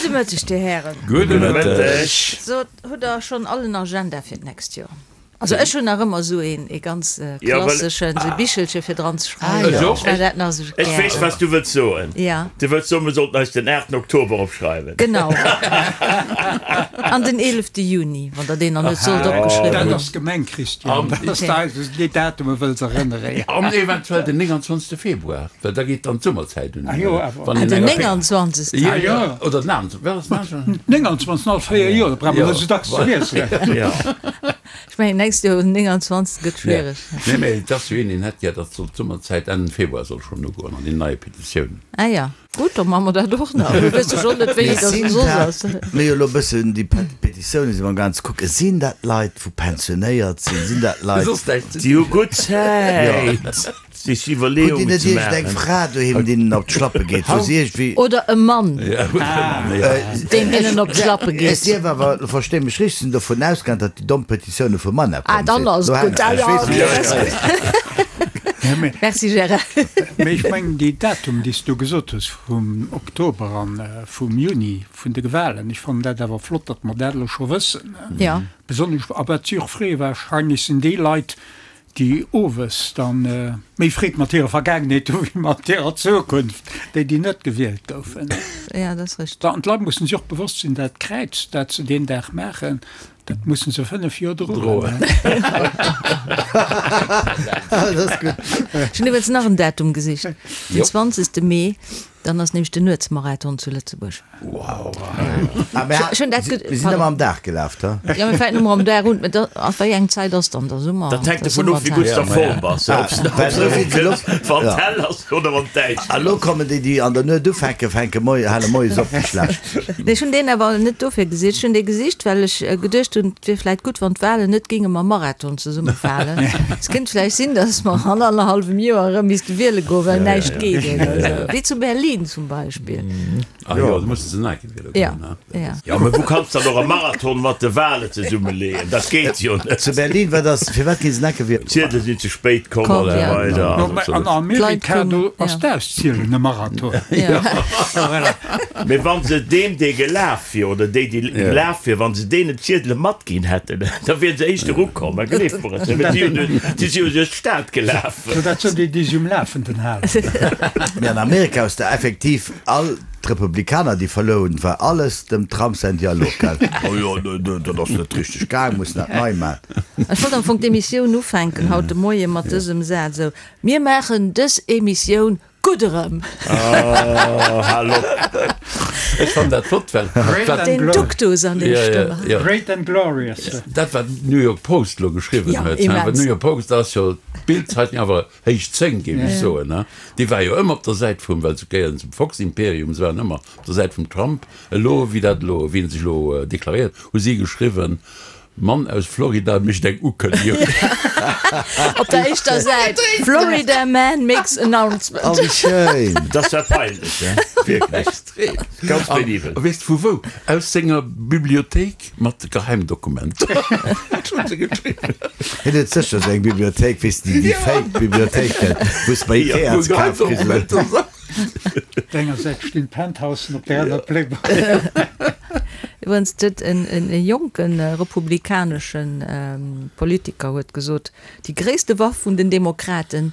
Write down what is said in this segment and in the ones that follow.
Gudde Mëtteg, Dir Hären. Gudde Mëtteg. Sot, hutt Der schonn all en Agenda fir d'nächst Joer? Also ech hunn nach ëmmer esou een, ee ganz klasseschen, esou e Bichelche fir dran ze schreiwen. Ech maachen dat nach esou gär. Ech weess, wat s du wëlls soen. Ja. Du wëlls soen, mir sollten eis den 8 Oktober opschreiwen. Genau. An den 11 Juni, wann Der deen nach net sollt opgeschriwwen hunn. Dat ass gemeng, Christian. Dat ass eis, un déi Datume wëlls erënneren. An eventuell den 29 Februar, well da geet dann d'Summerzäit un. Ah jo, awer. Wann een Den 29. Jo, jo. Oder den 28. Wat ass den 28.? 29. All 4 Joer, da brauch mer net esou dacks ze wiesselen. Jo. Ech mengen nächst Joer den 29. gëtt schwiereg. Nee, mee et ass jo een, deen hätt gär, datt soll d'Summerzäit Enn Februar soll schonn ugoen an déi neie Petitiounen. Ah ja, gutt, da maache mer dat och nach. Elo weess ech och net, wéi dat soss ass. Mir jo elo e bëssen déi Petitiounen si mer am gaang ze kucken. Sinn dat Leit, wou pensionéiert sinn? Sinn dat Leit. Déi hu gutt Zäit. Sech Hutt Dir Iwwerleeungen net ze iergend eng maachen. Fra doheem, deenen op d'Schlappe geet, wou se iergendwéi. Oder e Mann, deen hinnen op d'Schlappe Ech geet. dierf awer, lo versteh mech richteg, sinn dovun ausgaang, datt déi domm Petitioune vum Mann Ah, komm dann sinn. ass Lo et gutt. hänken Ah ech, ja, weess okay, net. ass gutt. Merci Gérard. Mee ech mengen, déi Datum, déi s du gesot hues vum Oktober an vum Juni, vun de Wahlen, ech fannen dat awer flott, datt mer dat elo scho wëssen. Ja. Besonnesch, a wat si och freeë wahrscheinlech, sinn déi Leit, déi owes dann méi Freed mat hirer Vergaangenheet hu wéi mat hirer Zukunft, déi déi net gewielt goufen. Ja, dat ass richteg. An d'Leit mussen sech och bewosst sinn, dat Kräiz, dat se deen Dag maachen, dat mussen se 5 Joer droen. Dat ass gutt. Ech hunn iwwregens nach en Datum gesicht, den 20. Mee. Dann ass nämlech den Nuetsmarathon zu Lëtzebuerg. Wow. Ah, mir sinn ëmmer am Dag gelaf, da. Jo, mir fänken ëmmer am Dag un. Mä da, a wéi eng Zäit ass dann der Summer? Dat hänkt dovun of, wéi gutt s de a Form bass, ob s de erëm kënns, wann et hell ass oder wann et däischter ass. A lo kommen déi, déi an der Nuet ufänken, fänke moie, hale moies op, déi schlecht. Nee, ech hunn deen awer net dofir gesicht. Ech hunn dee gesicht, well ech geduecht hunn, et wier vläicht gutt, wann d'Walen net géinge mam Marathon zesummefalen. Et kéint vläicht sinn, datt mer an annerhallwem Joer erëm misste wiele goen, well näischt geet oder esou. Wéi zu Berlin zum Beispill. Ah jo, do musse se nach eng Kéier wiele Ja, goen, ne? ja. Jo, mä wou kanns dann och e Marathon mat de Wale zesummeleeën? Dat geet jo net. Zu Berlin, wat ass, firwat gi se nach eng Kéier wielen? D'Ziedele sinn ze spéit komm Komm, an esou ja. weider. No, mä an Amerika, do ass d'Auszielen e Marathon. Ja. Voilà. Mee wann se deem, dee gelaf wier, oder déi, déi gelaf wier, wann se deenen d'Ziedele matginn hätten, da wieren se éischter ukomm. Mä gleeft mer et, well si hunn jo, si si jo duerch d'Stad gelaf. So, dat sinn déi, déi si um Lafenden halen. Mee an Amerika hues de effektiv all d'Republikaner, déi verluer hunn, war alles dem Trump säin Dialog, gell? Oh jo, dat ass net richteg gaang, mussen dat nei man. Ech wollt am Fong d'Emissioun ufänken haut de Moie mat dësem Saz, esou, Mir maachen dës Emissioun Gutt erëm! Oh, hal op! Ech fannen dat flott, well Great wat. and Den glorious. Duktus an der Stëmm. Ja, ja. Great and glorious. Dat wat d'New York Post elo geschriwwen Ja, huet, hein, well immens. d'New York Post ass jo d'Bild-Zeitung awer héich 10, géif ech soen, hein. Déi war jo ëmmer op der Säit vum, well se gehéieren zum Fox-Imperium, se waren ëmmer op der Säit vum Trump. Elo, wéi dat elo, wéi en sech elo deklaréiert, hu si geschriwwen, Mann aus Florida mécht eng Ukënnegung. Op der éischter Säit, Florida man makes announcement. Oh, wéi schéin! Dat war peinlech, he? Wierklech. Extrem. Ganz penibel. A weess de vu wou? Aus senger Bibliothéik mat Geheimdokumenter. Dat hunn se geschriwwen. Hien huet sécher esou eng Bibliothéik, weess de, déi fake Bibliothéiken, wou s de bei Ikea ze kafe kriss. Geheimdokumenter. Op der enger Säit stinn d'Penthousen, op der aner d'Playboy. Iwwregens huet e jonke republikanesche Politiker huet gesot, déi gréisste Waff vun den Demokraten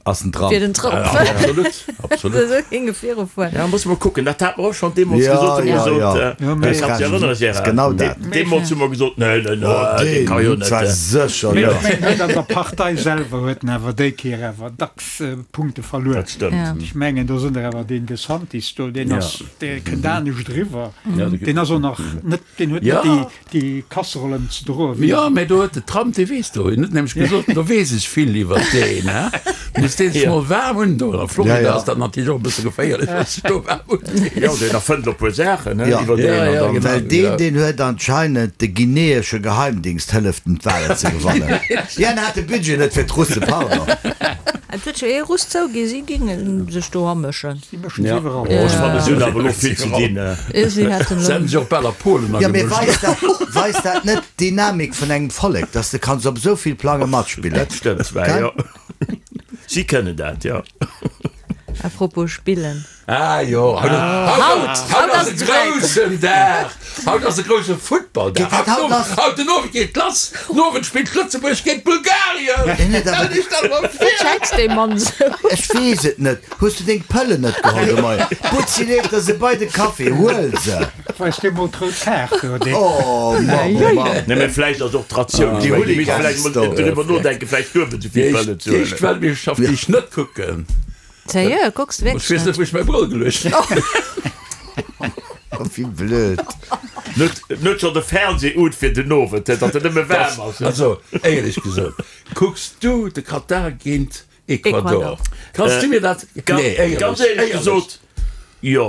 Ass den Trump. wier den Trump. Absolut, absolut. Esou géing e virufueren. Ja, musse mer kucken. Dat hate mer och schonn deemools Ja, gesot. Hu mer ja, gesot, ja. Ja, mee- kanns dech erënneren, Gérard? Genau dat. Deemools hu mer gesot, nee, nee, nee, dee ka jo Deen net. zwar sécher Mee net. ech mengen, huet an der Partei selwer huet en awer déi Kéier awer dacks Punkte verluer. Dat stëmmt. Ja. Ech mengen, do sinn der awer deen DeSantis do, deen Ja. ass, dee kënnt anescht eriwwer. Ja, de- Deen ass och nach net, deen huet Ja. net déi, déi Kasserollen ze droen wéi. Jo, mä do huet de Trump, dee weess do, en huet nämlech gesot, do weess ech vill iwwer deen, hä? Muss dee sech mol waarm undoen. A Florida Ja, ja. ass dat natierlech och e bësse geféierlech, wa sech do waarm undeet. Jo, deen erfënnt elo e puer Saachen, hä, Ja. iwwer deen. Ja, An ja, dann. genau. Well deen, deen huet anscheinend de guineesche Geheimdingst hëlleft en d'Wahlen ze gewannen. Jo, en hat de Budget net fir d'Russen, pardon. Et huet jo ee Russ zouginn, si ginge sech do amëschen. Si mëschen sech iwwerall. Oh, ech fannen, si hunn awer elo vill ze dinn. Si hätten Se hätten sech och bal a Polen Jo, mee agemëscht. weist dat, weist dat net d'Dynamik vun engem Vollek, dass de kanns op esou vill Plange matspillen? Dat stëmmt zwar, jo. Si kënnen dat, jo. A propos spillen. Ah jo, haut, haut ass e groussen Dag, haut ass e grousse Futtballdag. Haut den Owend geet lass, den Owend spillt Lëtzebuerg géint Bulgarien. Stell dech dat emol vir! Wat schätzt dee Mann esou? Ech weess et net. Hues du deng Pëllen net geholl de Moien? Butzi leeft der se bei de Café, huel se! Weist dir mol d'rout Kaart do, dee. Oh Mann, oh Mann. Nee, mä vläicht ass och d'Ratioun, Déi ech mengen, mir misste Hooligans vläicht mol do. driwwer nodenken, vläicht duebel esou vill Pëllen ze Déi éischt huelen. Weltmeeschterschaft, déi ech net kucken. Sérieux, kucks de Ech wierklech weess net, net? wou ech mäi Brëll geluecht hunn. Wéi blöd. Net, net scho de Fernseh un fir den Owend, datt en nëmme waarm ass. Also, éierlech gesot, kucks du de Katar géint Ecuador? Ecuador. Kanns du mir dat, nee, éierlech, Ganz éierlech gesot, jo.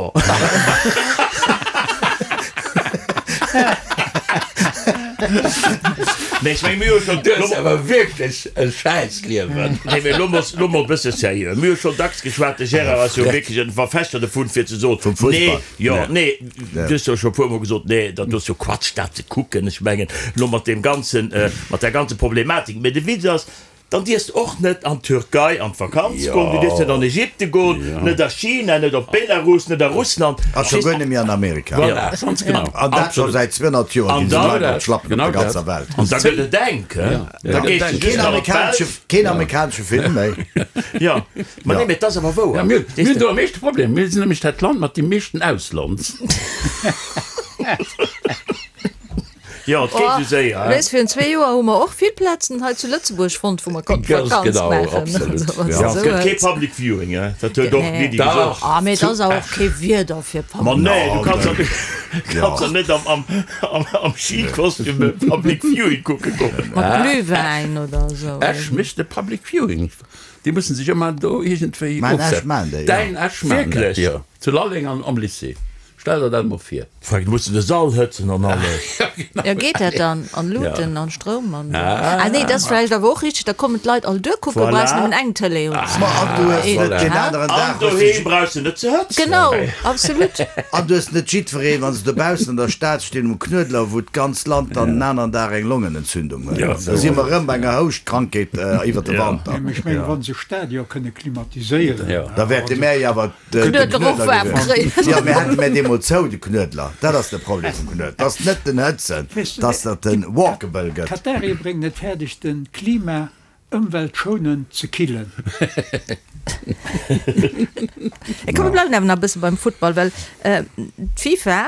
Nee, ech meng, mir hu schon. Du hues awer wierklech e Schäissliewen. Nee, mee lo mol, lo mol e bësse seriö. Mir hu schon dacks geschwat, de Gérard ass jo wierklech en Verfechter dovun, fir ze soen, Vum nee, Fussball. jo, nee, du hues jo scho e puermol gesot, nee, dat ass jo Quatsch, dat ze kucken. Ech mengen, lo mat deem ganzen, mat där ganze Problematik. Mee de Witz ass, Dann dierfs de och net an d'Türkei an d'Vakanz goen, du dierfs net an Ägypte goen, net a China, net op Belarus, net a Russland. A scho guer net méi an Amerika. Voilà, ganz genau. An dat scho säit 200 Joer ginn se Leit op d'Schlappen op der ganzer Welt. An da gëtt et enk, he? Da gees de just nach an d'Belsch. Keen amerikanesche Film méi. Jo, ma nee, mee et ass awer wouer. Mir hunn do am meeschte Problem. Mir sinn nämlech dat Land mat deem meeschten Ausland. Jo, et geet esou séier, Oh, weess, virun zwee Joer hu mer och vill Plazen hei zu Lëtzebuerg fonnt, wou mer konnten Ganz Vakanz genau, maachen. absolut. Also, wann s Ja. de Et gëtt esou kee hues. Public Viewing, hein? Dat huet och Nee. d'Lydie gesot. Dach. Ah, mee et ass awer och kee Wieder fir Ma Public. nee, du kanns doch kanns doch net am, am, am, am Skikostüm e Public Viewing kucke goen. Mat Glühwäin oder esou. Esch mécht e Public Viewing. Déi mussen sech ëmmer do iergendwéi Mäin Esch ofsetzen. maan déi, jo. Däin Esch maan dat, Wierklech? jo. Zu Lalleng an am Lycée. Stell der dat mol vir. Frank, du muss de Sall hëtzen an alles. Jo, geet dat dann? An Luuten an Stroum an. Ah nee, dat ass vläicht awer och richteg, da kommen d'Leit all duer kucken, Voilà. brauchs nëmmen eng Tëlee un. Ma an du hues net deen aneren An Dag hues du doheem brauchs de net ze hëtzen. Genau, absolut. An du hues net jiddwereen, wann se dobaussen an der Stad stinn um Knuedler, wou d'ganz Land dann en aneren Dag eng Longenentzündung huet. Da si mer erëm bei enger Houschtkrankheet iwwer de Wanter. Mee ech mengen, wa se Stadion kënne klimatiséieren. Da wäerte mär jo awer de Knuedler och waarm kréien. Jo, mir hätte mär dee mol zou, de Knuedler. Dat ass de Problem vum Knuedler. Dat ass net den Hëtzen, dat ass, datt en walkable gëtt. D'Qatarier bréngen et fäerdeg, de Klima ëmweltschonend ze killen. Komm, mir bleiwen awer nach e bësse beim Futtball, well d'FIFA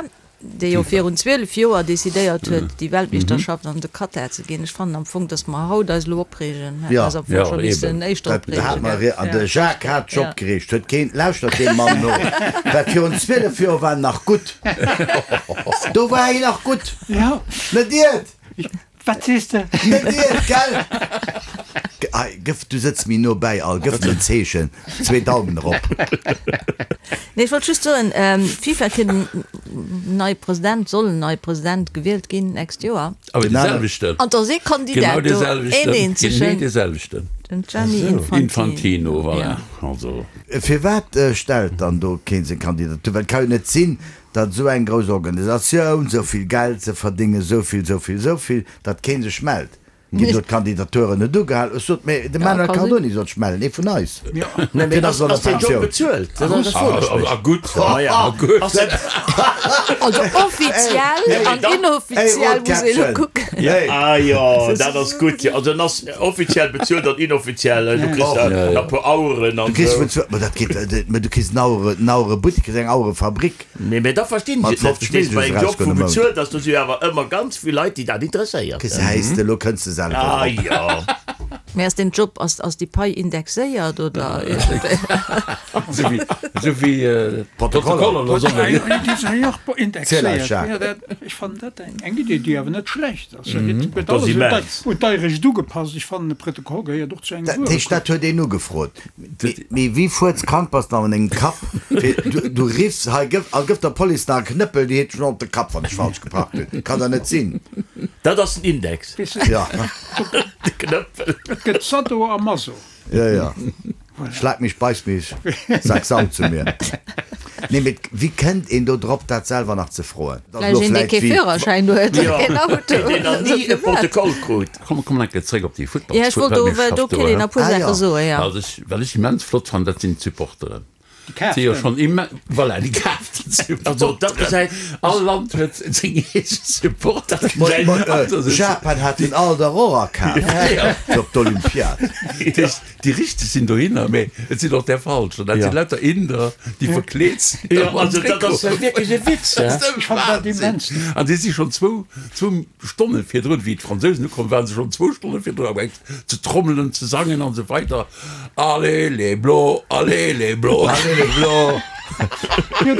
déi jo virun 12 Joer decidéiert huet, déi Weltmeeschterschaft an de Katar ze ginn. Ech fannen am Fong, datt mer haut eis elo opreegen, hätte mer eis am Fong scho missen éischter opreegen, gell? An de Jacques hat sech opgereegt, huet keen, lauschtert deem Mann no, well virun 12 Joer war en nach gutt, do war hien nach gutt, net iert. Wat sees de? Net iert, gell? Hei, gëff, du sëtz méi no bäi, al, gëff mir en Zeechen, zwee Daumen erop. Nee, ech wollt just soen, d'FIFA kritt en neie President, soll en neie President gewielt ginn d'nächst Joer. Awer dee selwechten. An do ass ee Kandidat do, een eenzegen. Genee dee selwechten. Den Gianni Infantino. Infantino, voilà. Also. Firwat stellt dann do keen seng Kandidatur? Well et ka jo net sinn, datt esou eng grouss Organisatioun, esou vill Geld ze verdéngen, esou vill, esou vill, esou vill, datt kee sech mellt. Ginn do d'Kandidaturen net ugehal? Ech sot, mee de Manuel Cardoni soll sech mellen, ee vun eis. Deen ass an der Ass deen Job Pensioun. bezuelt? Dat ass dat froen ech mech. A gutt, a gutt. Ass dat. Also offiziell an inoffiziell muss ee elo kucken. Ah jo, dat ass gutt. Jo, also en ass offiziell bezuelt an inoffiziell. Du kriss da e puer Aueren an Du kriss esou. vun zwou, ma dat geet, mä du kriss en Auere, en Auerebuttek, kriss eng Auerefabrik. Nee, mä da verstinn ech Mat et net. 50 Verstees du, bei Millioune engem Job, erausgoen wou am Mount. bezuelt ass, do si jo awer ëmmer ganz vill Leit, déi dat interesséiert. Gesäis de, elo kënns de selwer Ah drop. jo. Mä ass deen Job, ass, ass déi Pai indexéiert oder iergendwéi? Esou wéi, esou wéi D'Protokoller. d'Protokoller elo sollen. Déi sinn jo och Ziel eis, indexéiert. Jacques. Jo, dat, ech fannen dat eng, eng Idee, déi awer net schlecht ass. Da gëtt, gëtt Dat ass alles un immens. d'Ei, un d'Eirecht ugepasst. Ech fannen, e Protokoll gehéiert och zu engem Dat heescht, dat Wuerekorb. huet een ugefrot. Mee wéi fuerzkrank bass de an dengem Kapp fir du riffs hei gëff a gëff der Police nach e Knëppel, déi heet schon op de Kapp wann ech falsch geparkt hunn. Kann der net sinn. Dat ass den Index. Ja. De Knëppel. Et gëtt Sado a Maso. Ja ja. Schlag mich, beiß mich, sag Sau zu mir. Nee mee wéi kënnt een do drop dat selwer nach ze froen? Vläicht een dee kee Führerschäin huet a keen Auto. Deen nach ni e Protokoll krut. Komm, komm enke zréck op déi Ja, ech wollt do, Futtballsweltmeeschterschaft do do, kéint een he. e puer Ah, Saache jo. soen, ja. Also ech, wat ech immens flott fannen, dat sinn d'Supporteren. Si jo schonn imme voilà, déi kaaften Supporteren. Also dat gesäit. All Land huet seng eege Supporter. Japan hat den alt der och akaf fir op d'Olympiad. Déi richteg sinn dohinner, mee et sinn och där falsch. An dat sinn lauter Inder, déi verkleet sinn. Jo, also dat ass wierklech e Witz, he? Dat ass e Wahnsinn. An déi si schonn zwou, zwou Stonne virdrun, wéi d'Fransousen ukomm waren, se schonn zwou Stonne virdrun amgaang ze trommelen, ze sangen an esou weider. Allez les Bleus, allez les Bleus. Allez les Bleus. Jo,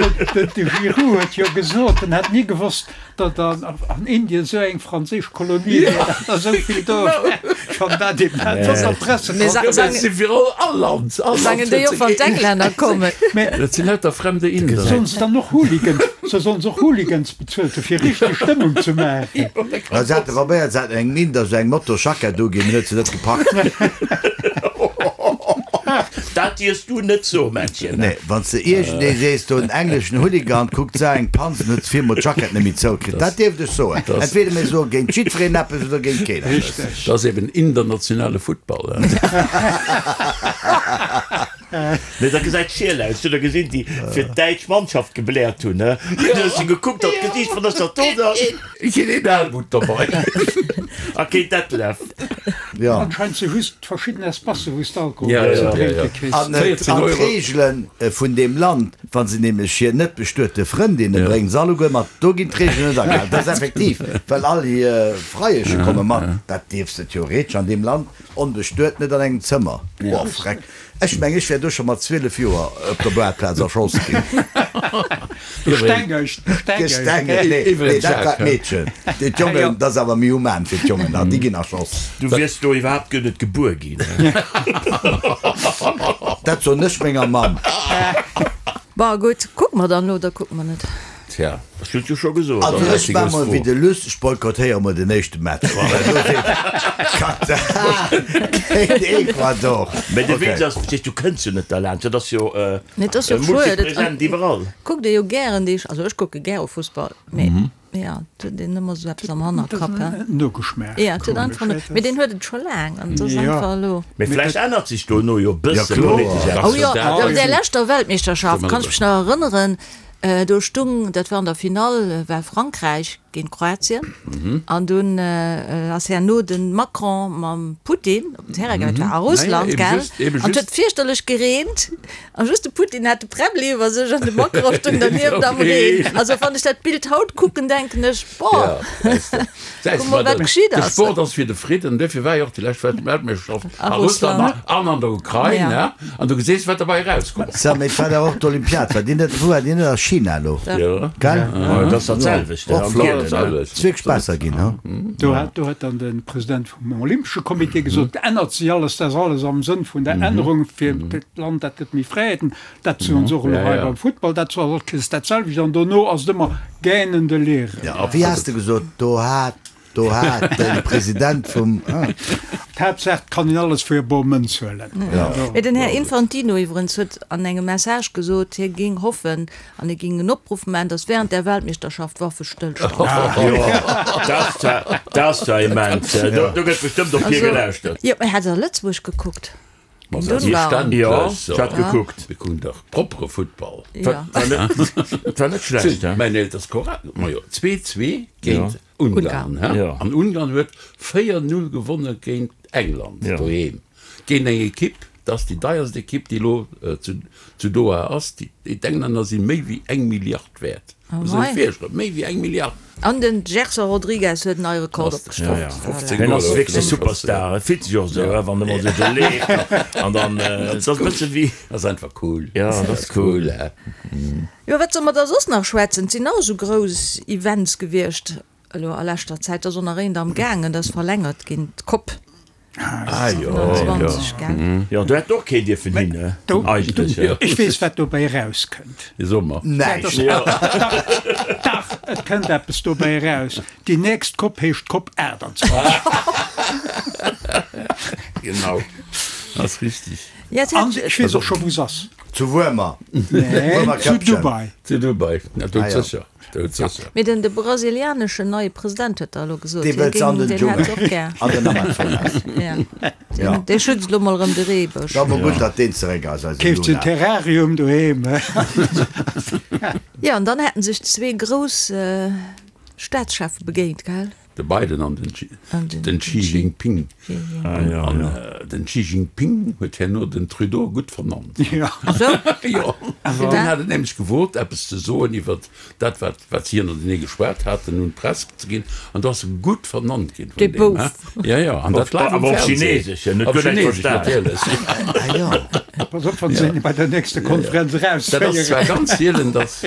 de Giroud huet jo gesot, en hätt ni gewosst, datt an Indien esou eng franséisch Kolonie wier, datt der esou vill do wär. Schonn dat immens an der Pressekonferenz. Si fir all Land, all Land Sangen déi och, wann d'Englänner kommen? Dat sinn lauter fremde Inder. Sollen se dann och Hooligans, se sollen se och Hooligans bezuelt hu fir richteg Stëmmung ze maachen? Se hate probéiert, se haten engem Inder esou eng Motorsjackett uginn, en huet se net gepackt. Dat dierfs du net soen, Männchen. Nee, wann s de iergendee sees, do en engleschen Hooligan kuckt se eng Panz an huet viirmol d'Jackett net méi zoukritt. Dat dierft ech soen. Entweder mir soe géint jiddwereen eppes oder géint keen eppes. Dat ass eben internationale Futtball. Nee, dat gesäit schiel aus. Hutt der gesinn, déi fir d'däitsch Mannschaft gebläert hunn, he? Du hues se gekuckt, dat Gesiicht vun der Stadt do. Keen een Helmut dobei. A keen Detlef. Jo. Anscheinend si just verschidden Espacen, wou s de Alkohol Ja, ze ja, ja, drénke ja. kriss. An 14 Euro. d'Reegele vun deem Land, wa se nämlech hir net bestuete Frëndinne bréngen, se alleguer mat, do ginn d'Reegelen net agehalen. Dat ass effektiv, well all hir Freieche komme mat. Dat dierfs de theoretesch an deem Land onbestuet net an engem Zëmmer. Oh, freck. Ech meng ech wär do scho mat 12 Joer op der Boarplaz erschoss ginn. Gestengegt, gestengegt. Nee, nee, dat war d'Meedchen. D'Jongen, dat ass awer méi human fir d'Jongen, déi ginn erschoss. Du wiers do iwwerhaapt guer net gebuer ginn. Dat soen ech menger Mamm. Bon, gutt, kucke mer dann elo oder kucke mer net? Tja. Ech hunn et jo scho gesot. Also ech war mol wéi de Luss, ech boykottéiere mol den éischte Match. Well do seet Katar géint Ecuador. Mä de Okay. Witz ass, verstees, du kënns jo net derlaanscht, dat ass jo Nee, et ass jo schued. Et multipresent iwwerall. kuckt ee jo gären déi, also ech kucke gäre Fussball, mee jo, et huet een ëmmer esou eppes am Hannerkapp, he. Nogeschmaach. Jo, et huet einfach no, mee deen huet et scho laang an et ass einfach elo. Mee vläicht ännert sech dono jo e bësse kloer. politesch eppes. Oh jo, op där leschter Weltmeeschterschaft kann ech mech nach erënneren, Do stung, dat war an der Finall, war Frankräich géint Kroatien an dunn ass herno de Macron mam Putin op den Terrain gaangen, dat war a Russland, gell, an et huet fierchterlech gereent a just de Putin hat de Präbbli iwwer sech an de Macron stung dernieft am Reen. Also wann ech dat Bild haut kucken, denken ech, boah, kuck mol wat geschitt De ass. Sport ass fir de Fridden, duerfir war jo och déi lescht Weltmeeschterschaft a Russland an an der Ukrain, an du geséis wat derbei erauskomm ass. Sou, mee et war dach och d'Olympiad, war déi net, wou war déi net a China elo? Jo. Gell? Dat ass dat selwecht, Och am flott. Gielen, ne? Ass wierklech besser ginn, hu? Do hat, do huet dann de President vum Olympesche Comité gesot, et ännert sech alles, dat ass alles am Sënn vun der Ännerung fir d'Land, dat gëtt méi Fräiheeten. Dat soen se och elo hei beim Futtball, dat ass alles dat selwecht an dono ass et ëmmer gähnende Leere. Ja, a wéi has de gesot, do hat, do hat de President vum. D'Haaptsaach, et kann een alles fir e bor Mënz huelen. Mee den Här Infantino iwwerens huet an engem Message gesot, hie géing hoffen an hie géing en Opruff maachen, datt während där Weltmeeschterschaft Waffestëllstand Jo, dat ass zwar immens. Do gëtt bestëmmt op hie gelauschtert. Jo, mee hat Der Lëtzebuerg gekuckt? Ma selbstverständlech. Jo, ech hat gekuckt. Mir kucken dach proppere Futtball. Ja. Et war net schlecht, he? Mäin Eelter ass korrekt. Majo, 2, 2 géint Ungarn, he? Ja. An Ungarn huet 4, 0 gewonne géint England doheem. Géint eng Ekipp, dat ass déi deierst Ekipp, déi elo zu Doha ass. D'Englänner si méi wéi eng Milliard wäert. Muss sech virstellen, méi wéi eng Milliard. An den Gerson Rodrigues huet en neie Rekord opgestallt. Voilà. Hien ass wierklech e Superstar. Et fillt sech och esou, wann e mol esou do leeft an dann, et ass e bësse wéi. Ass einfach cool. Jo, dat ass cool. Jo, wat solle mer da soss nach schwätzen? Et sinn nach esou grouss Events gewiescht elo a leschter Zäit. Et ass och nach eent am gaangen, dat ass verlängert ginn, d'Cop. Ah jo, 27, gell? Jo, do hätt och keen dierfen hin, ne? Eigentlech, ja. Ech weess, wat dobäi erauskënnt. So mer. Näischt. Dach, et kënnt eppes dobäi eraus. Déi nächst Cop heescht Cop 28. Genau, ass richtig. Ja, et An hätt. ech weess och scho, wou se ass. Zu Wuermer. Nee, zu Dubai. Zu Dubai, na doudsécher, doudsécher. Mee den de brasilianeschen neie President huet da elo gesot, Dee hie wëllt se an géing, den deen hätt se Dschungel, och gär. an den Amazonas. Ja, Ja. deen, dee schützt elo mol erëm de Reebësch. Da mol gutt, datt deen zeréck ass, eise Keeft se en Lula. Terrarium doheem. Jo, an dann hätten sech zwee grouss Staatscheffe begéint, gell? De Biden an den Xi Jinping. An den Xi Jinping huet herno den Trudeau gutt vernannt. Jo. Deen hat et nämlech gewot, eppes ze soen iwwer dat, wat si ënnertenee geschwat haten, un d'Press ze ginn. An do ass e gutt vernannt ginn vun deem. Jo, jo. An dat live am Fernseh. Op Chinesesch natierlech. Pass op, wann se een bei der nächster Konferenz erausféieren. Dat ass zwar ganz sielen, dass.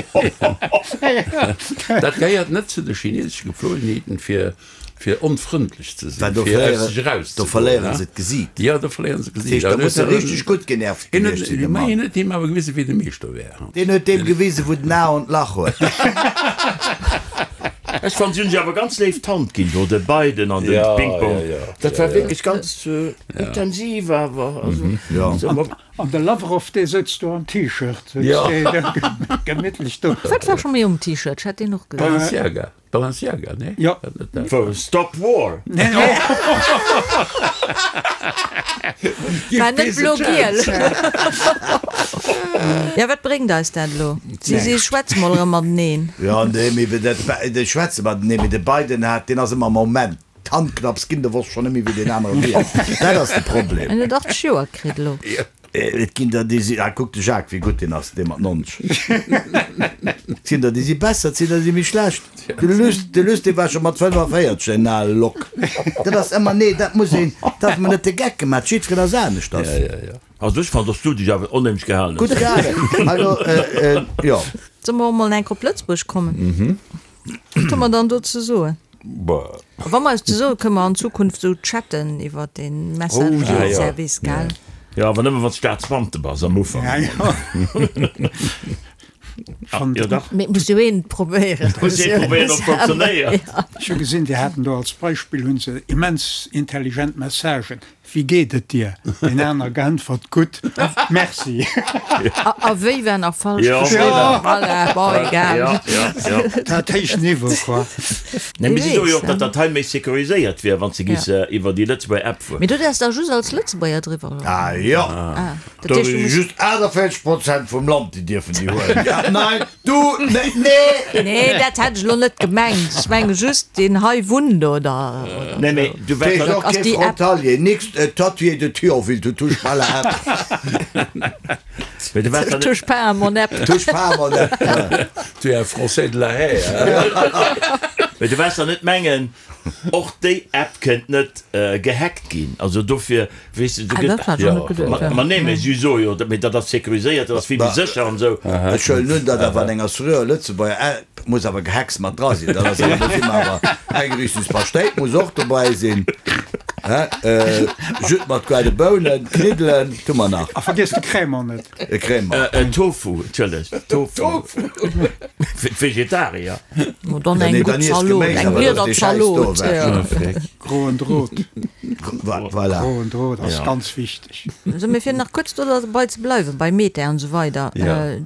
Dat gehéiert net zu de chinesesche Gepflogenheeten, fir, fir onfrëndlech ze sinn, fir aus sech erauszegoen. Do verléieren se d'Gesiit. Jo, do verléieren se d'Gesiit. Dat heescht, da muss e richteg gutt genervt gewiescht sinn, de Mann. Hien huet him awer gewisen, wéi de Meeschter wär. Deen huet deem gewisen, wou den A an d'Lach huet. Ech fannen, si hunn sech awer ganz léif d'Hand ginn do, de Biden an de Ping-Pong. Dat war wierklech ganz intensiv awer. Also, An de Lavrov dee souz do am T-Shirt, souz dee gemittlech do. Wat war scho méi um T-Shirt? Ech hat deen och gesinn. Balenciaga, Balenciaga, nee? Jo. Wou? Stop War! War net blo-giel. Jo, wat bréngt eis dat elo? Si si schwätze mol erëm mateneen. Jo, nee, mee dat, déi schwätze mateneen, mee de Biden hat, deen ass ëmmer am Moment. D'Hand knapps ginn, de wosst schonn net méi wéi deen anere wier. Dat ass de Problem. En huet 80 Joer kritt elo. Et ginn der déi si, ah kuck de Jacques wéi gutt deen ass, dee mat 90. Et sinn der déi si besser, et sinn der déi si méi schlecht. De Luss, de Luss dee war scho mat 45 en ale Lock. Dat ass ëmmer, nee dat muss een, darf mer net de Geck gemaach, jiddwereen ass aneschters. Also ech fannen, dass du dech awer onheemlech gehalen hues. Gutt gehalen, also jo. Solle mer och mol enk op Lëtzebuerg kommen? Wat hu mer dann do ze soen? A wa mer eis ze soen, kënne mer an Zukunft esou chatten iwwer dee Messenger-Service, gell? Jo, awer nëmme wann s Staatsbeamte bass am Ufank. Jo, dach. Mee et muss jo een et probéieren. Et muss ee probéieren, ob et funktionéiert. Ech hu gesinn, déi haten do als Beispill, hu se immens intelligent Messagen. Wéi geet et dir? Deen aner geäntwert, Gutt, merci. A wéi war nach falsch geschriwwen? Voilà, bon, egal. Dat héicht Niveau, quoi. Nee, mee si soe jo och, datt dat hei méi securiséiert wier, wann s de giss iwwer déi Lëtzebuerger App fueren. Mee du däerfs da just als Lëtzebuerger driwwer, oder? Ah jo, Dat do heescht, du si muss. just 48 Prozent vum Land, déi dierfen déi huelen. Ja, nein, du, nee, nee! Nee, dat hätt ech elo net gemengt. Ech menge just, deen hei wunnt oder, oder Nee, mee du T'es wäers och ass kee déi App. Frontalier, nix, tatoué de Thionville, tu touches pas la App. Mee du wäers Je dann net. touche pas à mon app. Touche pas à mon app. Tu es un Français de la haie, hein? Mee du wäers dann net mengen, Och déi App kënnt net gehackt ginn, also dofir, weess de, du gëtt. Ma nee, mee si soe jo, mee dat ass sécuriséiert, dat ass vill méi sécher an esou. Ech huelen un, datt awer an enger seriöer Lëtzebuerger App muss awer Gehacks mat dra sinn. Dat ass awer, do si mer awer, Eingerichtungspaschtéit muss och dobäi sinn, hä, Jus mat goarde Bounen, Kniddelen, wat hu mer nach? A vergiess de Crémant net. E Crémant. Tofu, entschëllegt, Tofu fir d'Vegetarier. Mo dann eng gutt Zalot, eng Bliederzalot. Groen Drot. Voilà. Groen Drot ass ganz wichteg. Sou, mee fir nach kuerz do derbei ze bleiwen, bei Meta an esou weider.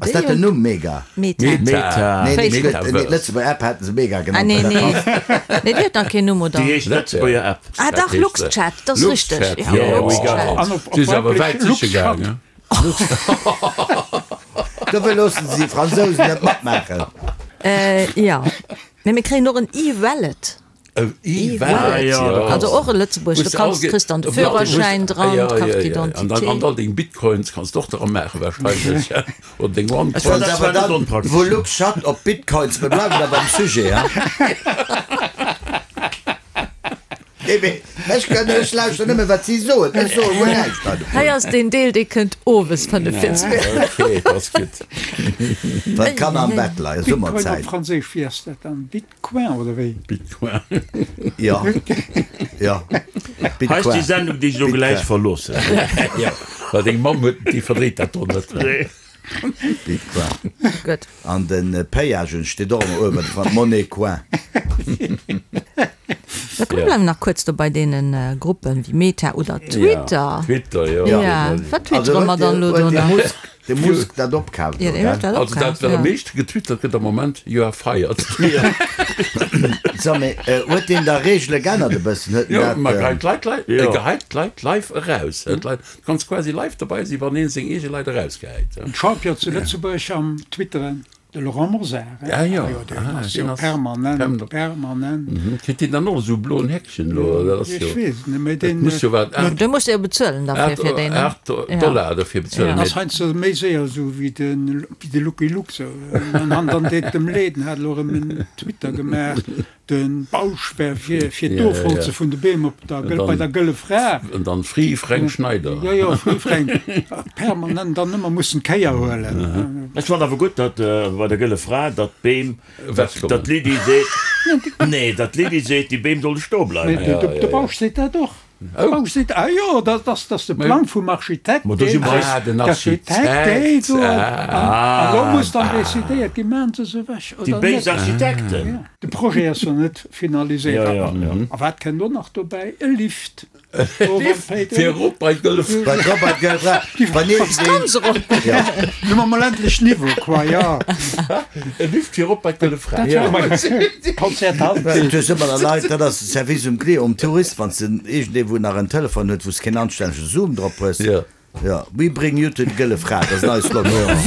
Ass dat den Numm, Mega? Meta. Meta. Nee, nee, Facebook. nee, d'Lëtzebuerger App haten se Mega Ah, genannt. nee, nee. Nee, déi huet nach keen Numm, oder? Déi heescht Lëtzebuerger App. Ah, dach, Luxchat, dat ass richteg. Luxchat, Ja, Luxchat. An op Si ass awer wäit weiblich siche Luxchat. gaangen. Dofir loossen se déi Fransousen net matmaachen. Jo, mee mir kréien och en E-Wallet. E-Wallet, jo. Also och e Lëtzebuerg, do kanns, kriss dann de Führerschäin dran, d'Carte d'identité. An all deng Bitcoins kanns de och dra maachen wahrscheinlech, oder deng Onecoins. Dat war net onpraktesch. Wou LuxChat op Bitcoins, mir bleiwen da beim Sujet, hein. Nee, mee ech kënn, ech lauschter nëmme wat si soen, ech soe guer näischt hei dovun. Hei ass deen Deel, dee kënnt owes 45 Minutten. Ok, dat ass gutt. Wann d'Kanner am Bett leien, Bitcoin op Summerzäit. Franséisch, wéi ass dat dann? Bitcoin oder wéi? Bitcoin. Jo, jo, Hei ass déi Bitcoin. Sendung, déi ech elo gläich Bitcoin. verloossen. Jo, well deng Mamm huet, déi verdréit dat do net. Nee. Bitcoin. Gutt. An de Payagen steet och ëmmer uewen dran, Monnaie coin. Da komm, bleiwen nach kuerz do bei deene Gruppen wéi Meta oder Twitter. Twitter, jo. Ja, wat twittere mer dann elo do nach? De Musk dat opkaaft elo, gell? Also dat wat am meeschte getwittert gëtt am Moment, you are fired. So, mee huet deen da Reegele geännert e bëssen? Huet en Jo, dat. ma geheit d'Leit lei, e geheit d'Leit live eraus. Du kanns quasi live dobei sinn, wann een seng eege Leit erausgehäit. Den Champion zu Lëtzebuerg am Twitteren. De Laurent Mosar, hein? Ah jo, deen ah, ass deen jo ass permanent, permanent. permanent. Mhm. Kritt deen dann och esou e bloen Häkchen elo? Dat ass Ech jo, weess et net, mee dat deen, muss jo wat, Du muss jo bezuelen derfir, fir deen, ne? 8 Dollar derfir bezuelen. ass heiansdo méi séier esou wéi de, wéi de Lucky Luke sou. An an dann deet dem Leed, en hat elo erëm en Twitter gemaach, De Bausch wär fir fir d'Ofholze vun de Beem op der Gëll, bei der Gëlle Fra. An dann Free Fränk Schneider. Jo, jo, Free Fränk. Permanent dann ëmmer mussen d'Kéier huelen. Ech fannen awer gutt, datt bei der Gëlle Fra, datt d'Beem, datt d'Lydie seet, nee, datt d'Lydie seet, déi Beem solle stoe bleiwen. Mee de Bausch seet dat och. Oh. Seet, ah jo, dat ass, dat ass de Plang vum Architekt. Ma do si mer eis. Ah, den Architekt. Deen do. An do muss dann decidéiert ginn, maachen se se ewech oder net. Déi béis Architekten. De Projet ass jo net finaliséiert. Jo, jo, jo. A wat kënnt och nach dobäi? E Lift. E Lift fir erop bei d'Gëlle Fra. Bei erop bei d'Gëlle Fra. Wann iergendeen. Ja. Nu hu mer mol endlech Niveau, quoi, jo. E Lift fir erop bei d'Gëlle Fra. Konzert. Du hues ëmmer der Leit, dat ass. Service um Client, um Tourist, wann s de iergendee wou nach en Telefon huet, wou s keen anstännege Zoom drop hues. Jo. Jo, we bring you to d'Gëlle Fra, dat ass en neie Slogan.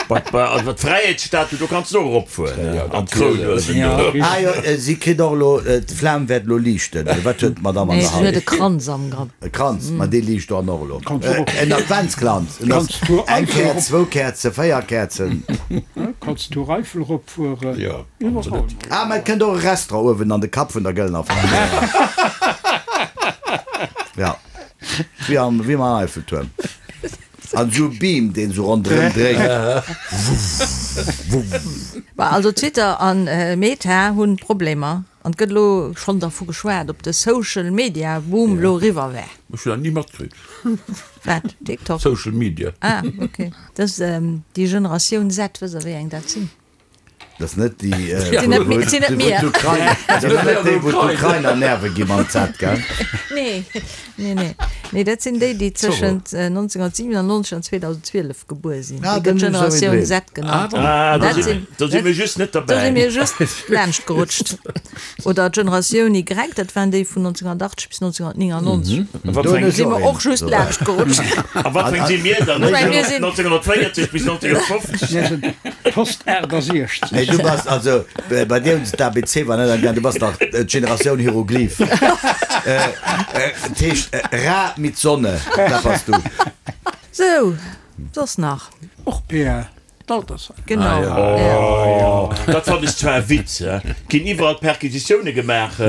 Bei d'Fräiheetsstatue, do kanns de och eropfueren an d'Kroun huelen do. Ah jo, si kritt och elo, d'Flam wäert elo liichten. Wat huet d'Madame an Nee, der si huet Hand? e Kranz am Grapp. E Kranz, ma dee liicht dann och elo. Kanns du och. En Adventskranz. En ass Kanns du eng Eiffel Käerz, erop. zwou Käerzen, 4 Käerzen. Kanns du Eiffel eropfueren. Jo. Ah, mä et kënnt och e Restaurant uewen an de Kapp vun der Gëllener Fra. Ja, wéi am, wéi am Eiffeltuerm. An esou e Beam, deen esou ronderëm dréit. Wuff, wuff. Bah, also Twitter an Meta hunn Problemer an et gëtt elo schonn dervu geschwat, ob de Social Media Boom elo eriwwer wär. Ech hunn dat ni matkritt. Wat? TikTok? Social Media. Ah, ok. Dat ass déi Generatioun Z, wësst der wéi eng dat sinn? Dat ass net déi, Sinn net mir, sinn net mir. Dat ass net déi, wou d'Ukrainer Nerve gi mam Z, gell? Nee, nee, nee. Nee, dat sinn déi, déi tëschent 1997 an 2012 gebuer sinn. Ah, Déi gëtt dann hu se Generatioun souwéi Z genannt. Ah, do Dat si, sinn, do si mir just net do si derbäi. mir just laanscht gerutscht. Oder d'Generatioun Y, dat waren déi vun 1980 bis 1999. A wat fir eng, Si mer och just laanscht gerutscht. a wat fir eng si mir dann? Ech meng, mir sinn. 1940 bis 1950? Mir sinn Post 68. Nee, du bass, also bei dir hunn se d'ABC war net am du bass nach d'Generatioun Hieroglyph. Dat heescht Ra mit Sonne, dat bass du. Sou, soss nach? Och PR. D'Altersheim. Genau. Oh, dat fannen ech zwar e Witz, he. Ginn iwwerall Perquisitioune gemaach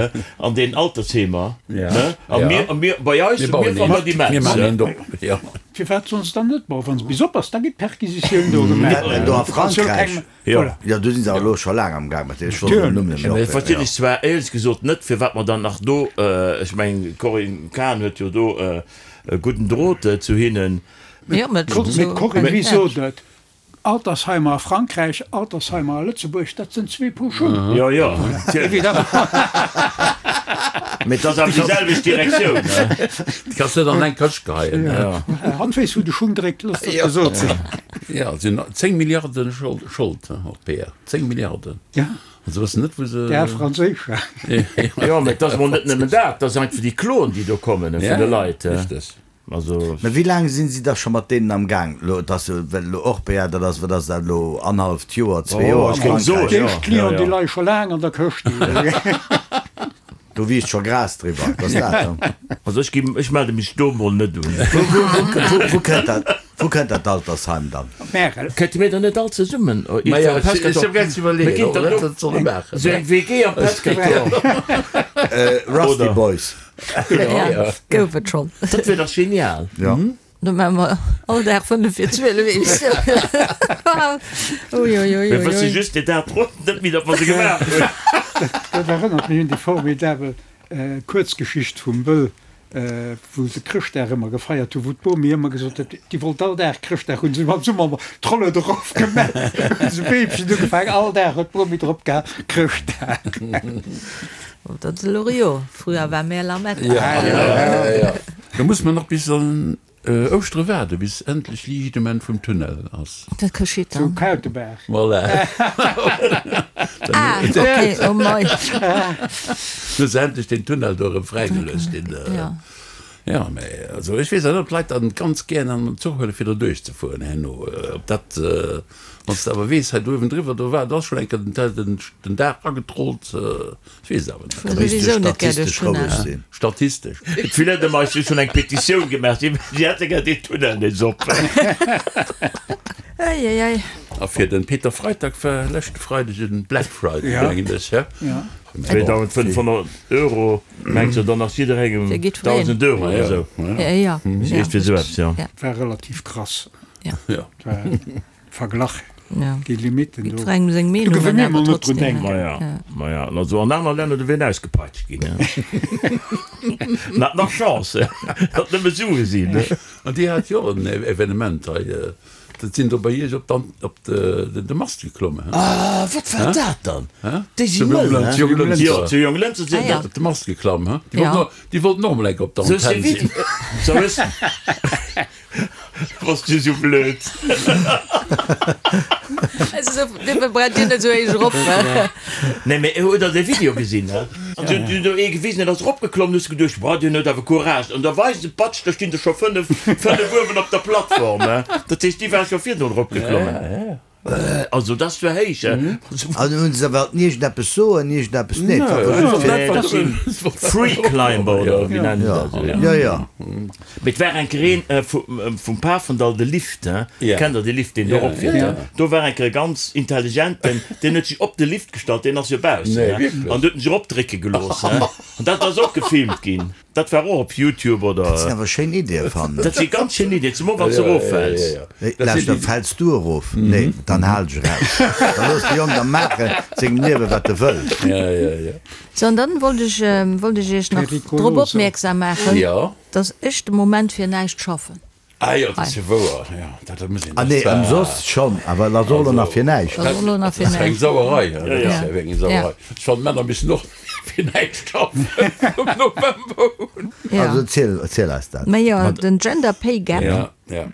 an den Altersheemer, ne? A mir, a mir, bei eis, Mir bauen mir fannen dat een. Mir immens, maachen he. een op, jo. Firwat sollen se dann net bauen? Wa se bis op ass, da ginn d'Perquisitioun do gemaach. Do a Frankräich. Jo. Jo, do si se awer elo scho laang am Gaang mat deene Scholden. Den Numm net méi op. Verstinn ech zwar éierlech gesot net, firwat mer dann nach do, ech mengen, d'Corinne Cahen huet jo do e gudden Drot zu hinnen. Jo, mä Mee d'Corinne, wéi sot et? Altersheimer a Frankräich, Altersheimer a Lëtzebuerg, dat sënn zwee Paar Schung. Jo, jo, natierlech. Mee et ass awer déi selwecht Direktioun, ne? Déi kanns net an eng Këscht geheien. Hatt weess, wou de Schung dréckt, looss dat gesot sinn. Jo, et sinn 10 Milliarde Schold op PR. 10 Milliarden. Ja. An se wëssen net, wou se. Déi al franséischer. Jo, mee et ass emol net nëmmen dat, et ass einfach déi Kloen, déi do kommen vun de Leit. Richteg. Also. Mä wéi laang sinn si da scho mat deenen am Gaang? Elo, et ass jo, well elo Orpea, dat ass, wat ass dat elo, annerhalleft Joer, zwee Joer a ech géing soen, Frankräich. Déi éischt Clienten, déi leie scho laang an der Këscht. Do wiisst scho Gras driwwer, et ass dat, ne? Also ech ginn, ech melde mech do mol net un. Wou, wou, wou, wou kënnt dat, wou kënnt dat Altersheim dann? Op Märel. Kënnte mir dann net all zesummen Ma jo, am ech ech Pescator? hu grad ze Mir iwwerleeën, ginn ob dann mer do dat solle maachen. esou eng WG am Pescator. Rusty Oder? Boys. Ja, gouf et schonn. Dat wier dach genial. Ja. Do maache mer all Dag 5 vir 12 Emissioun. Uiuiui. Mir wësse just deen Dag drop net méi, datt mer se gemaach hunn. Dat erënnert mech un déi formidabel Kuerzgeschicht vum Wëll, wou se Chrëschtdag ëmmer gefeiert hunn, wou d'Bomi ëmmer gesot huet, déi wollt all Dag Chrëschtdag hunn. Se hunn am Summer ëmmer d'Rollen erof gemaach, hunn se Beemchen ugefaangen, all Dag huet d'Bomi drop gehaen, Chrëschtdag. Dat ass elo Rio, früher war mehr Lametta. Ja, ja, ja. Do muss mer nach bis an. Ouschtere waarde bis endlech Liicht um Enn vum Tunnel ass. Wat geschitt Zu dann? Kautebaach. Voilà. Ah, okay, oh mei. Hu se endlech deen Tunnel do erëm fräigeluecht, deen. Ja. Ja, mä also ech weess net, ob d'Leit dann ganz gären an den Zuch huele fir do duerchzefueren herno. Ob dat, wann s de awer weess, hei do uewendriwwer, do war, do ass schonn eng Kéier den, den Daach agetrollt, ech weess et awer net. Fuer souwisou net gär duerch Tunnel. Statistesch. D'Filette-Mais hu schonn eng Petitioun gemaach, si hätte gär deen Tunnel nees op. Ei, ei, ei. A fir de Peter Freitag war leschte Freideg en Black Friday, mengen ech, hä? 2.500 Euro, mengs de, dann ass jidderengem 1.000 Euro oder esou? Iergendwéi esou eppes, jo. War relativ krass. Verglach déi Limiten do. Jiddwerengem seng Do Meenung, géif an mir emol awer net drun trotzdem. denken. Maja, maja, also an aner Länner, do wier en ausgepeitscht ginn. En hat nach Chance, datt nëmme Sue sinn. An Dir hat jo och en Evenement hei, dat sinn do bei Iech op d'An, op de, de Mast geklommen, he? Ah, wat war dat dann? Déi si Zu mëll, he? Zu Jonglënster. Jo, zu Jonglënster sinn Ah, ja. Op de Mast geklamm, he? Déi wollten och, déi wollten och emol eng Kéier op der Sou Antenn sinn. Sou hues. Bass du sou blöd. Dofir brennt dir net sou héich erop. Nee, mee hutt der dee Video gesinn, he? An se hunn do ee gewisen, deen ass eropgeklommen, hues de geduecht, boah, deen huet awer Courage. An da weisen se, patsch, da stinn der scho 5, 5 uewen op der Plattform, he? Dat heescht, déi ware scho virdrun eropgeklommen. Also dat ass zwar héich, he? An hunn se awer iergendeppes soen, iergendeppes net? Dat si Free Climber oder wéi nennen se dat? Jo, jo. Mee et war eng Kéier een vum Pafendall, de Lift, he? Kennt der dee Lift, deen do eropfiert, he? Do war eng Kéier e ganz intelligenten, deen huet sech op de Lift gestallt, deen ass jo baussen, he? An huet en sech eropdrécke gelooss, he? An dat ass och gefilmt ginn. Dat war och op Youtube oder? Dat sinn awer schéin Iddien, fannen ech. Dat si ganz schéin Iddien, zemol wann s de eroffäls. Lauschter, fäls du erof? Nee, dann hal dech eraus. Da looss de Jong da maachen sengem Liewen, wat e wëll. Sou, an dann wollt ech, wollt ech Iech nach drop opmierksam maachen, dass ech de Moment fir näischt schaffen. Ah jo, dat ass jo wouer, jo, dat muss een. Ah nee, ëmsoss schonn, awer et ass och elo nach fir näischt. Dat ass och elo nach fir näischt. Dat ass eng näischt. Sauerei, dat ass jo wierklech eng Sauerei. Ech fannen, d'Männer missten och fir näischt schaffen vum November un. Also erziel, erziel eis dat. Mä jo, den Gender Pay Gap, Ja, ja.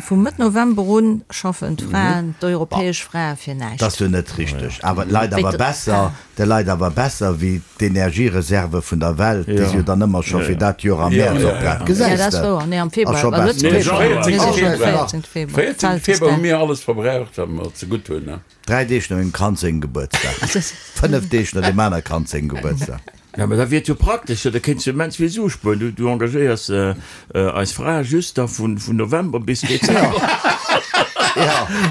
Vu Mëtt November un schaffen d'Fraen, d'europäesch Frae fir näischt. Dat ass jo net richteg, awer et leit awer besser, De leit awer besser wéi d'Energiereserve vun der Welt, déi si jo dann ëmmer scho fir dat Joer am Mäerz opbraucht. Gesäis de? Ass scho besser. 14 Februar hu mir alles verbraucht, wat mer zegutt hunn. Dräi Deeg no mengem Kand sengem Gebuertsdag. 5 Deeg no deem aner Kand sengem Gebuertsdag. Jo, mä da wier et jo praktesch, da kéints du immens vill Sue spueren. Du engagéiers Eis Fra just da vun November bis Dezember.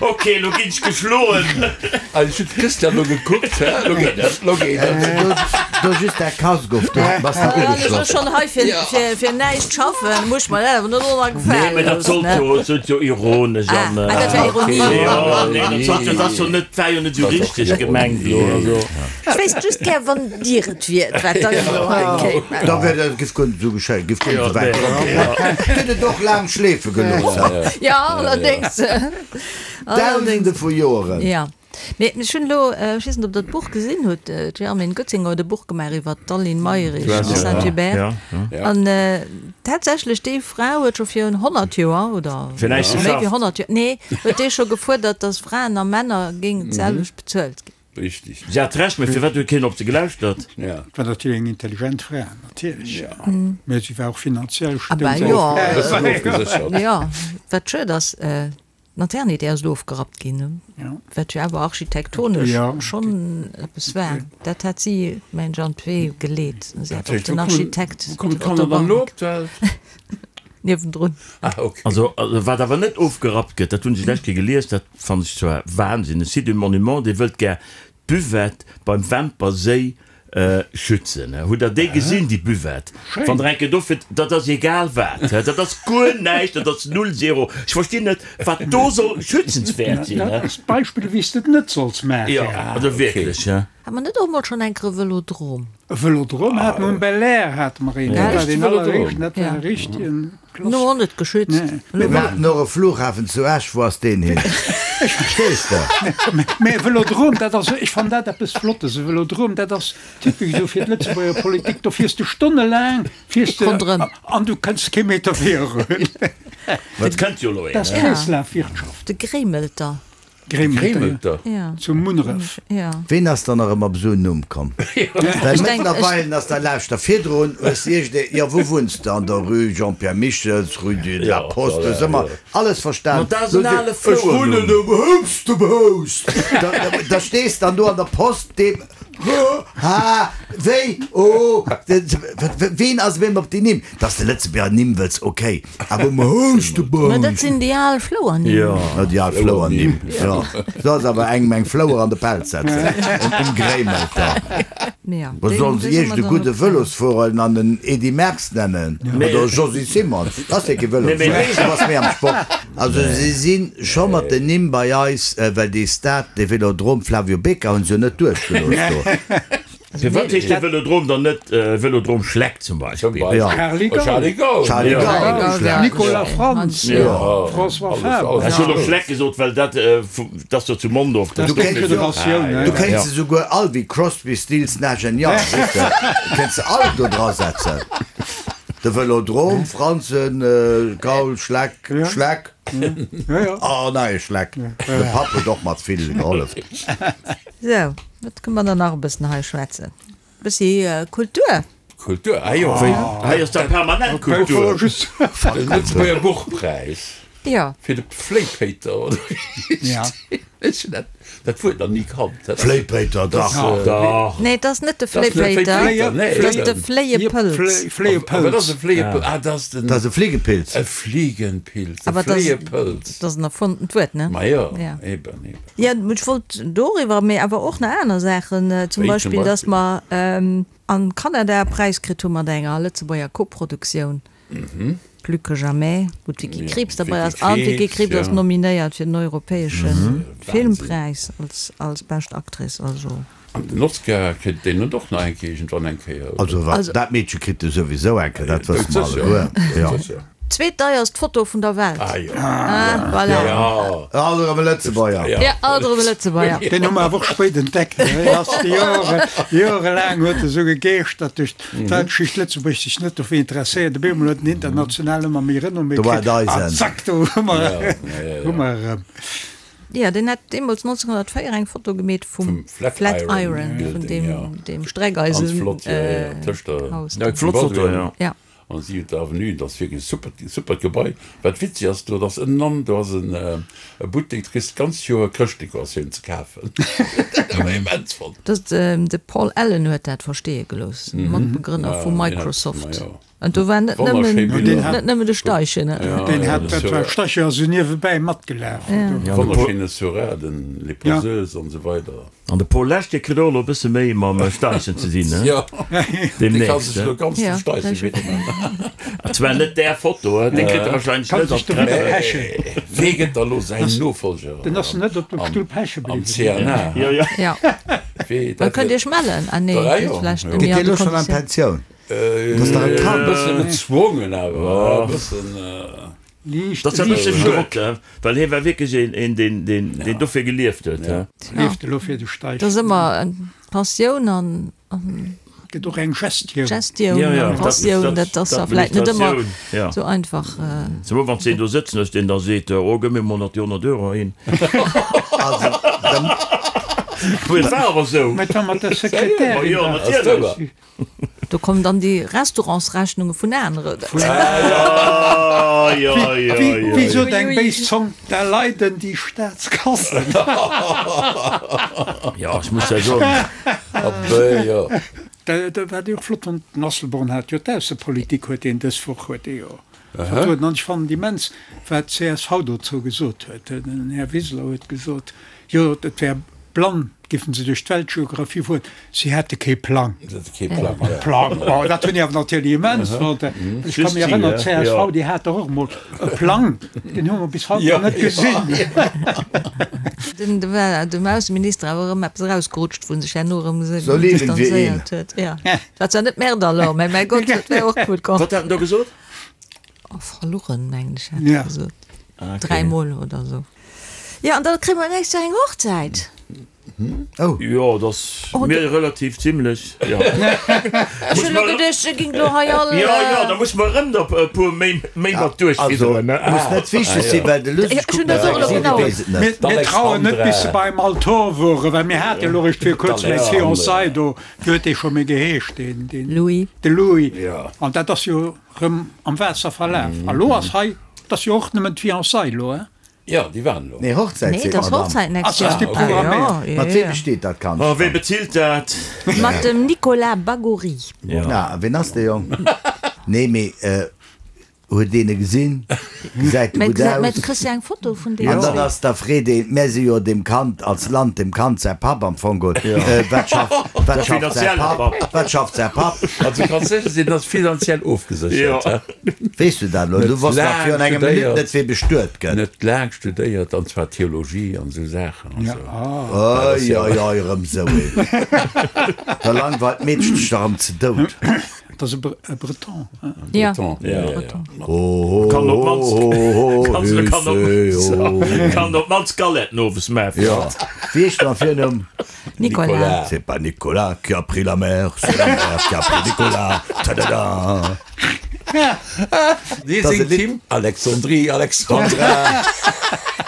Ok, lo ginn ech geschloen. Also ech hunn d'Christiane lo gekuckt, hä? Lo geet et, lo geet et. Do just däi Casque of, do bass de Wann ech ugeschloss. schonn hei fir, fir, fir näischt schaffen, muss ech mer dat awer net och nach Nee, mä gefale dat sollt loossen, jo, ne? et sollt jo ironesch Ah, an. ah, dat war Ironie. Jo, nee, dat sollt jo, dat ass jo net, war jo net esou richteg gemengt lo, also. Ech wéisst just gär, wann Dir et wiert, wat dann elo hei kéim. Da wär dat, giff guer net esou geschéien, giff guer net esou wäit kommen. Huet et och laang schleefe gelooss. Jo, allerdéngs. Dausende vu Joeren. Jo. Mee ech hunn elo, ech weess net, ob Der d'Buch gesinn hutt, d'Germaine Goetzinger huet e Buch gemaach iwwer d'Aline Mayrisch de Saint-Hubert. An tatsächlech, déi Fra huet scho virun 100 Joer, oder méi wéi 100 Joer, nee, huet déi scho gefuerdert, datt Fraen a Männer géingen d'selwecht bezuelt ginn. Richtig. Si hat Recht, mee firwat huet keen op se gelauschtert? Ja. War natierlech eng intelligent Fra, natierlech. Mä si war och finanziell Ah bah stoung jo, Bëssen ofgeséchert. jo, wat schued ass, d'Maternité ass elo ofgerappt ginn, wat jo awer architektonesch schonn eppes war. Dat hat si, mengen ech, an d'Wee geleet. Si hat och den Architekt Wou kommen d'Kanner dann elo op d'Welt? Niewendrun. Ah, ok. Also, wat awer net ofgerappt gëtt, dat hunn ech d'lescht Kéier gelies, dat fannen ech zwar Wahnsinn, e Site du Monument, dee wëllt gär d'Buvette beim Wämper Séi schützen. Hutt Der déi gesinn, déi Buvette? Wann Der eng Kéier do fiert, dat ass egal wat, dat ass guer näischt, dat ass null, zéro. Ech verstinn net, wat do soll schützenswäert sinn. Dat ass d'Beispill, wéi s de et net solls maachen. Jo, also wierklech. Hat mer net och mol schonn enker e Vëlodrom? E Vëlodrom hate mer, um Belair hate mer een. Dat war deen alleréischten, dat war e richtegen. Klass. No net geschützt. Mir haten och e Flughafen zu Esch, wou ass deen hin? Verstees de? Mä e Vëlodrom, dat ass, ech fannen dat eppes Flottes, e Vëlodrom, dat ass typesch esou fir d'Lëtzebuerger Politik, do fiers de stonnelaang, fiers de Ronderëm. an du kënns kee Meter virun. Et kënnt jo elo een, Dat ass ne? Kreeslafwirtschaft. De Gréimelter. Gréimelter, Ja. zu Munneref. Ja. Ween ass dann nach ëmmer op esou en Numm komm? Well mëttlerweilen ass der, lauschter, virdrun hues de iergend, jo wou wunns de, an der rue Jean-Pierre Michels, rue de la Poste, hues ëmmer alles verstan. Ma dat ass en ale Ech wunnen Flouernumm. um Hupstemhoust. Da, da stees dann do an der Post, deem, ha, wéi, oh, ween ass op eemol op déi Nimm? Dass de Lëtzebuerger Nimm wëlls, ok, awer um Houschtebaum. Mä dat sinn déi al Flouernimm. Jo, déi al Flouernimm, jo. Soll se awer engem eng Flouer an de Pelz setzen, um Gréimelter. Ja, Mä sollen se iergend e gudde Vëlosfuerer an en Edy Merckx nennen oder e Josy Simon? Dat ass jo kee Vëlosfuerer, du bass méi am Sport. Also si si scho mat den Nimm bei eis, well dee Stade, dee Vélodrome Flavio Becca hunn se jo net duerchgelooss do. Firwat heescht de Vëlodrom dann net Vëlodrom Schleck zum Beispill? Charly Gaul, Charly Gaul, Nicolas Frantz, François Faber. Ech hunn och Schleck gesot, well dat ass jo zu Mondorf. Dat ass d'Federatioun. Du kéints se souguer all wéi Crosby, Stills, Nash and Young, weess de, kéints se all do dra setzen. De Vëlodrom, Frantzen, Gaul, Schleck, Schleck, oh nei Schleck. De Papp huet och mat vill gehollef. Sou, wat kënne mer dann nach e bëssen hei schwätzen? E bëssi Kultur. Kultur, ah jo. Wéi, hei ass da permanent Kultur. De Lëtzebuerger Buchpräis. Jo. Fir de Fléipéiter, oder wéi heescht deen? Ech hunn dat, dat Wuert nach ni kannt. Fléipéiter, dach. Dach. Nee, et ass net de Fléipéiter, et ass de Fléiepëlz. Fléiepëlz. Wat ass e Fléiepëlz? Ah, dat ass den. Dat ass e Fliegenpilz. E Fliegenpilz, e Fléiepëlz. Dat ass en erfonntent Wuert, ne? Ma jo, eben, eben. Jo, ech wollt doriwwer, mee awer och nach aner Saachen, zum Beispill, dass mer an Kanada e Präis kritt hu mat enger Lëtzebuerger Koproduktioun, Plus que jamais, wou d'Vicky Krieps derbei ass. An d'Vicky Krieps ass nominéiert fir den europäesche Filmpräis als bescht Actrice. Also. An den Oscar kritt deen net och nach eng Kéier iergendwann eng Kéier, oder? Also wat, dat Meedche kritt e souwisou eng Kéier, dat wësse mer alleguer, jo. Zweetdeierst Foto vun der Welt. Ah jo. Ah, voilà. Jo. Alt erëm e Lëtzebuerger. Ja, alt erëm e Lëtzebuerger. Deen hu mer awer och spéit entdeckt. Deen ass Jore, jorelaang huet e sou gegeeschtert duerch d'Weltgeschicht, Lëtzebuerg sech net dofir interesséiert. Op eemol huet en international ëmmer méi Renommée Do war kritt. et An eisen. zack, do hu mer, hu mer erëm. Jo, deen hat deemools 1904 eng Foto gemeet vum Flatiron, vun deem Streckeisen-Haus. Eng flott Foto, jo. Ja. An si huet d'Avenue, dat ass wierklech e supert, supert Gebai. Wat witzeg ass, do ass ënnenan, do ass en e Buttek, do kriss de d'ganz Joer Chrëschtdekoratioun ze kafen. Dat hu mer immens fonnt. Dat, de Paul Allen huet dat versteeë gelooss, Matbegrënner vu Microsoft. An do war net nëmmen, net nëmmen de Steichen. Deen hat, dat war Steichen ass esou niewebäi matgelaf. Wonnerschéine Seurat, den Les Poseuses an esou weider. An de Paul Lesch, dee kritt och elo e bësse méi mam Steichen ze dinn, he? Dee ka sech elo ganz dem Steichen widmen. Zwar net där Foto, he, dee kritt e wahrscheinlech net an d'Presse. Wee gëtt da lo säin Nofolger Den ass net op dem Stull peche am bliwwen. CNA? Jo, jo. Ja. Da kënnt Iech mellen. Ah nee, dat vläicht net Geet méi dee an de elo schonn an Konditioun. d'Pensioun? Dat ass dach e E Kand. bëssen gezwongen awer, e bëssen. Liicht, Dat ass e bësse liicht. schued, he, well hie war wierklech een, een deen, deen, deen dofir gelieft huet, he. Lieft elo fir de Steichen. Dat ass ëmmer eng Passioun an, an Gëtt och eng Gestioun. Gestioun Ja, ja, an dat, Passioun, dat, dat ass da vläicht net ëmmer d'Administratioun, ja. sou einfach. Zemol wann s de een do sëtzen hues, deen da seet, oh, gëmm mir mol nach déi 100 Euro hin. Also, da. Mee et war awer sou. Mä et war mat der Sekretärin. Ma jo, natierlech. Do kommen dann déi Restaurantsrechnunge vun aneren. Wéi sot eng béis Zong, da leiden déi Staatskassen. Jo, ech muss ja soen. Dat wat ech och flott fonnt, den Asselborn hat jo d'Aussepolitik huet deen dës Woch huet dee jo vertrueden an ech fannen immens wat d'CSV dozou gesot huet. Den Här Wiseler huet gesot, jo et wär blann Giffen se duerch d'Weltgeographie fueren, si hätte kee Plang. Plang, oh, dat hunn déi awer natierlech immens fonnt. Ech ka mech erënneren, d'CSV, déi hat dach och emol e Plang, deen hu mer bis haut nach net gesinn. Den, do war dem Ausseminister awer erëm eppes erausgerutscht, wou en sech herno erëm So leben wir ihn. distanzéiert huet. Jo, dat war zwar net Merde alors, mä mäi Gott, dat wär och gutt komm. Wat hat en do gesot? Oh, verluchen, mengen ech, hat e gesot. Dräimol oder esou. Jo, an da kréie mer nächst Joer eng Hochzäit. Oh. Jo, dat ass mir relativ zimlech, jo. Ech hunn elo geduecht, e géing elo hei all. Jo, jo, da muss mer erëm der e puer méi, méi mat duerchfidderen, ne? Muss net wichteg sinn, well de Luss, ech kucken dat elo genau. Mir trauen net, bis se beim Altor woren, well mir hate elo eréischt vir kuerzem eng Fiançailles do, wéi huet dee scho méi geheescht, deen, deen. Louis. De Louis. An dat ass jo rëm am Waasser verlaf. A lo ass hei, 't ass jo och nëmmen d'Fiançailles elo, hein? Jo, déi waren elo. Nee, Hochzäit Nee, seet dat ass d'Madame. Hochzäit Ass nächst Joer. ass déi programméiert? Jo, Mat jo, weem jo. besteet dat Kand Oh, wee dann? bezilt dat? Mat dem Nicolas Bagory. Na, a ween ass dee Jong? Nee, mee huet een e gesinn? Gesäit e Mä gutt gesäit, mä aus? du kriss jo eng Foto vun deem. An dann ass da freet een, mär si jo dem Kand als Land, dem Kand säi Papp am Fong geholl, wat schafft, wat schafft säi Papp, wat schafft säi Papp? Also du kanns sécher sinn, en ass finanziell ofgeséchert. Jo. Weess du dat elo? Du wosst nach virun engem Minutt net, wee bestuet gëtt. Net laang studéiert, an zwar Theologie an esou Saachen an esou. Oi, oi, oi, erëm esou een. Da langweilt d'Meedchen sech dach erëm ze dout. Dat ass e Breton, hein? Ja, Breton, ja, ja, ja. Kann op d'mannst, kann op, kann op d'mannst Galetten owes maachen. Jo, wéi heescht en am Virnumm? Nicolas. C'est pas Nicolas qui a pris la mer, c'est la mer qui a pris Nicolas. Tadada! Dee singt d'Hymn Alexandrie, Alexandra.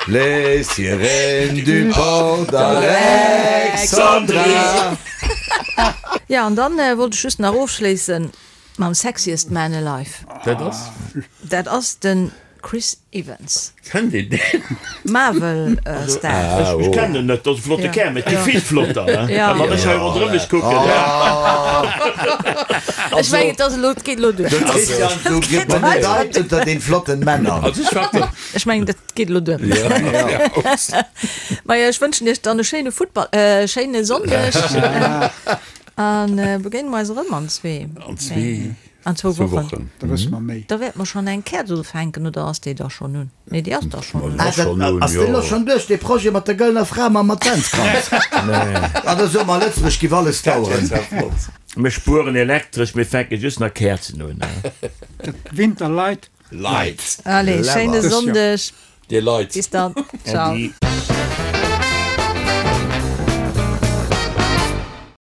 Les sirènes du port d'Alexandria. Ja, an dann wollt ech just nach ofschléissen mam Sexiest Man Alive. Dat ass? Dat ass den Chris Evans. Kennt een deen? Marvel Star. Ech kennen en net, dat ass e flotte Kär, mee et gi vill flotter, he? Wann ech hei ronderëm mech kucken. Ech mengen, et ass elo, et geet elo duer. De Christian, du gebenedeit unter den flotten Männer. Also ech war Ech mengen, dat geet elo duer. Majo, ech wënschen iech dann e schéine Futtball, e schéine Sonndeg a begéine mer eis erëm an zwee. An zwee. An zwou Wochen. Da wësse mer méi. Da wäerte mer schonn eng Käerz ufänken, oder ass déi da schonn un? Nee, déi ass da schonn un. Ah, dat ass deen elo schonn duerch, dee Projet mat der gëllener Fra mam Adventskranz? Ah, da soe mer, Lëtzebuerg giff alles daueren. Mir spueren Elektresch, mir fänke just nach Käerzen un. Dat Winterlight. Leit. Allez, schéine Sonndeg. Dir Leit. Bis dann. Ciao. Äddi.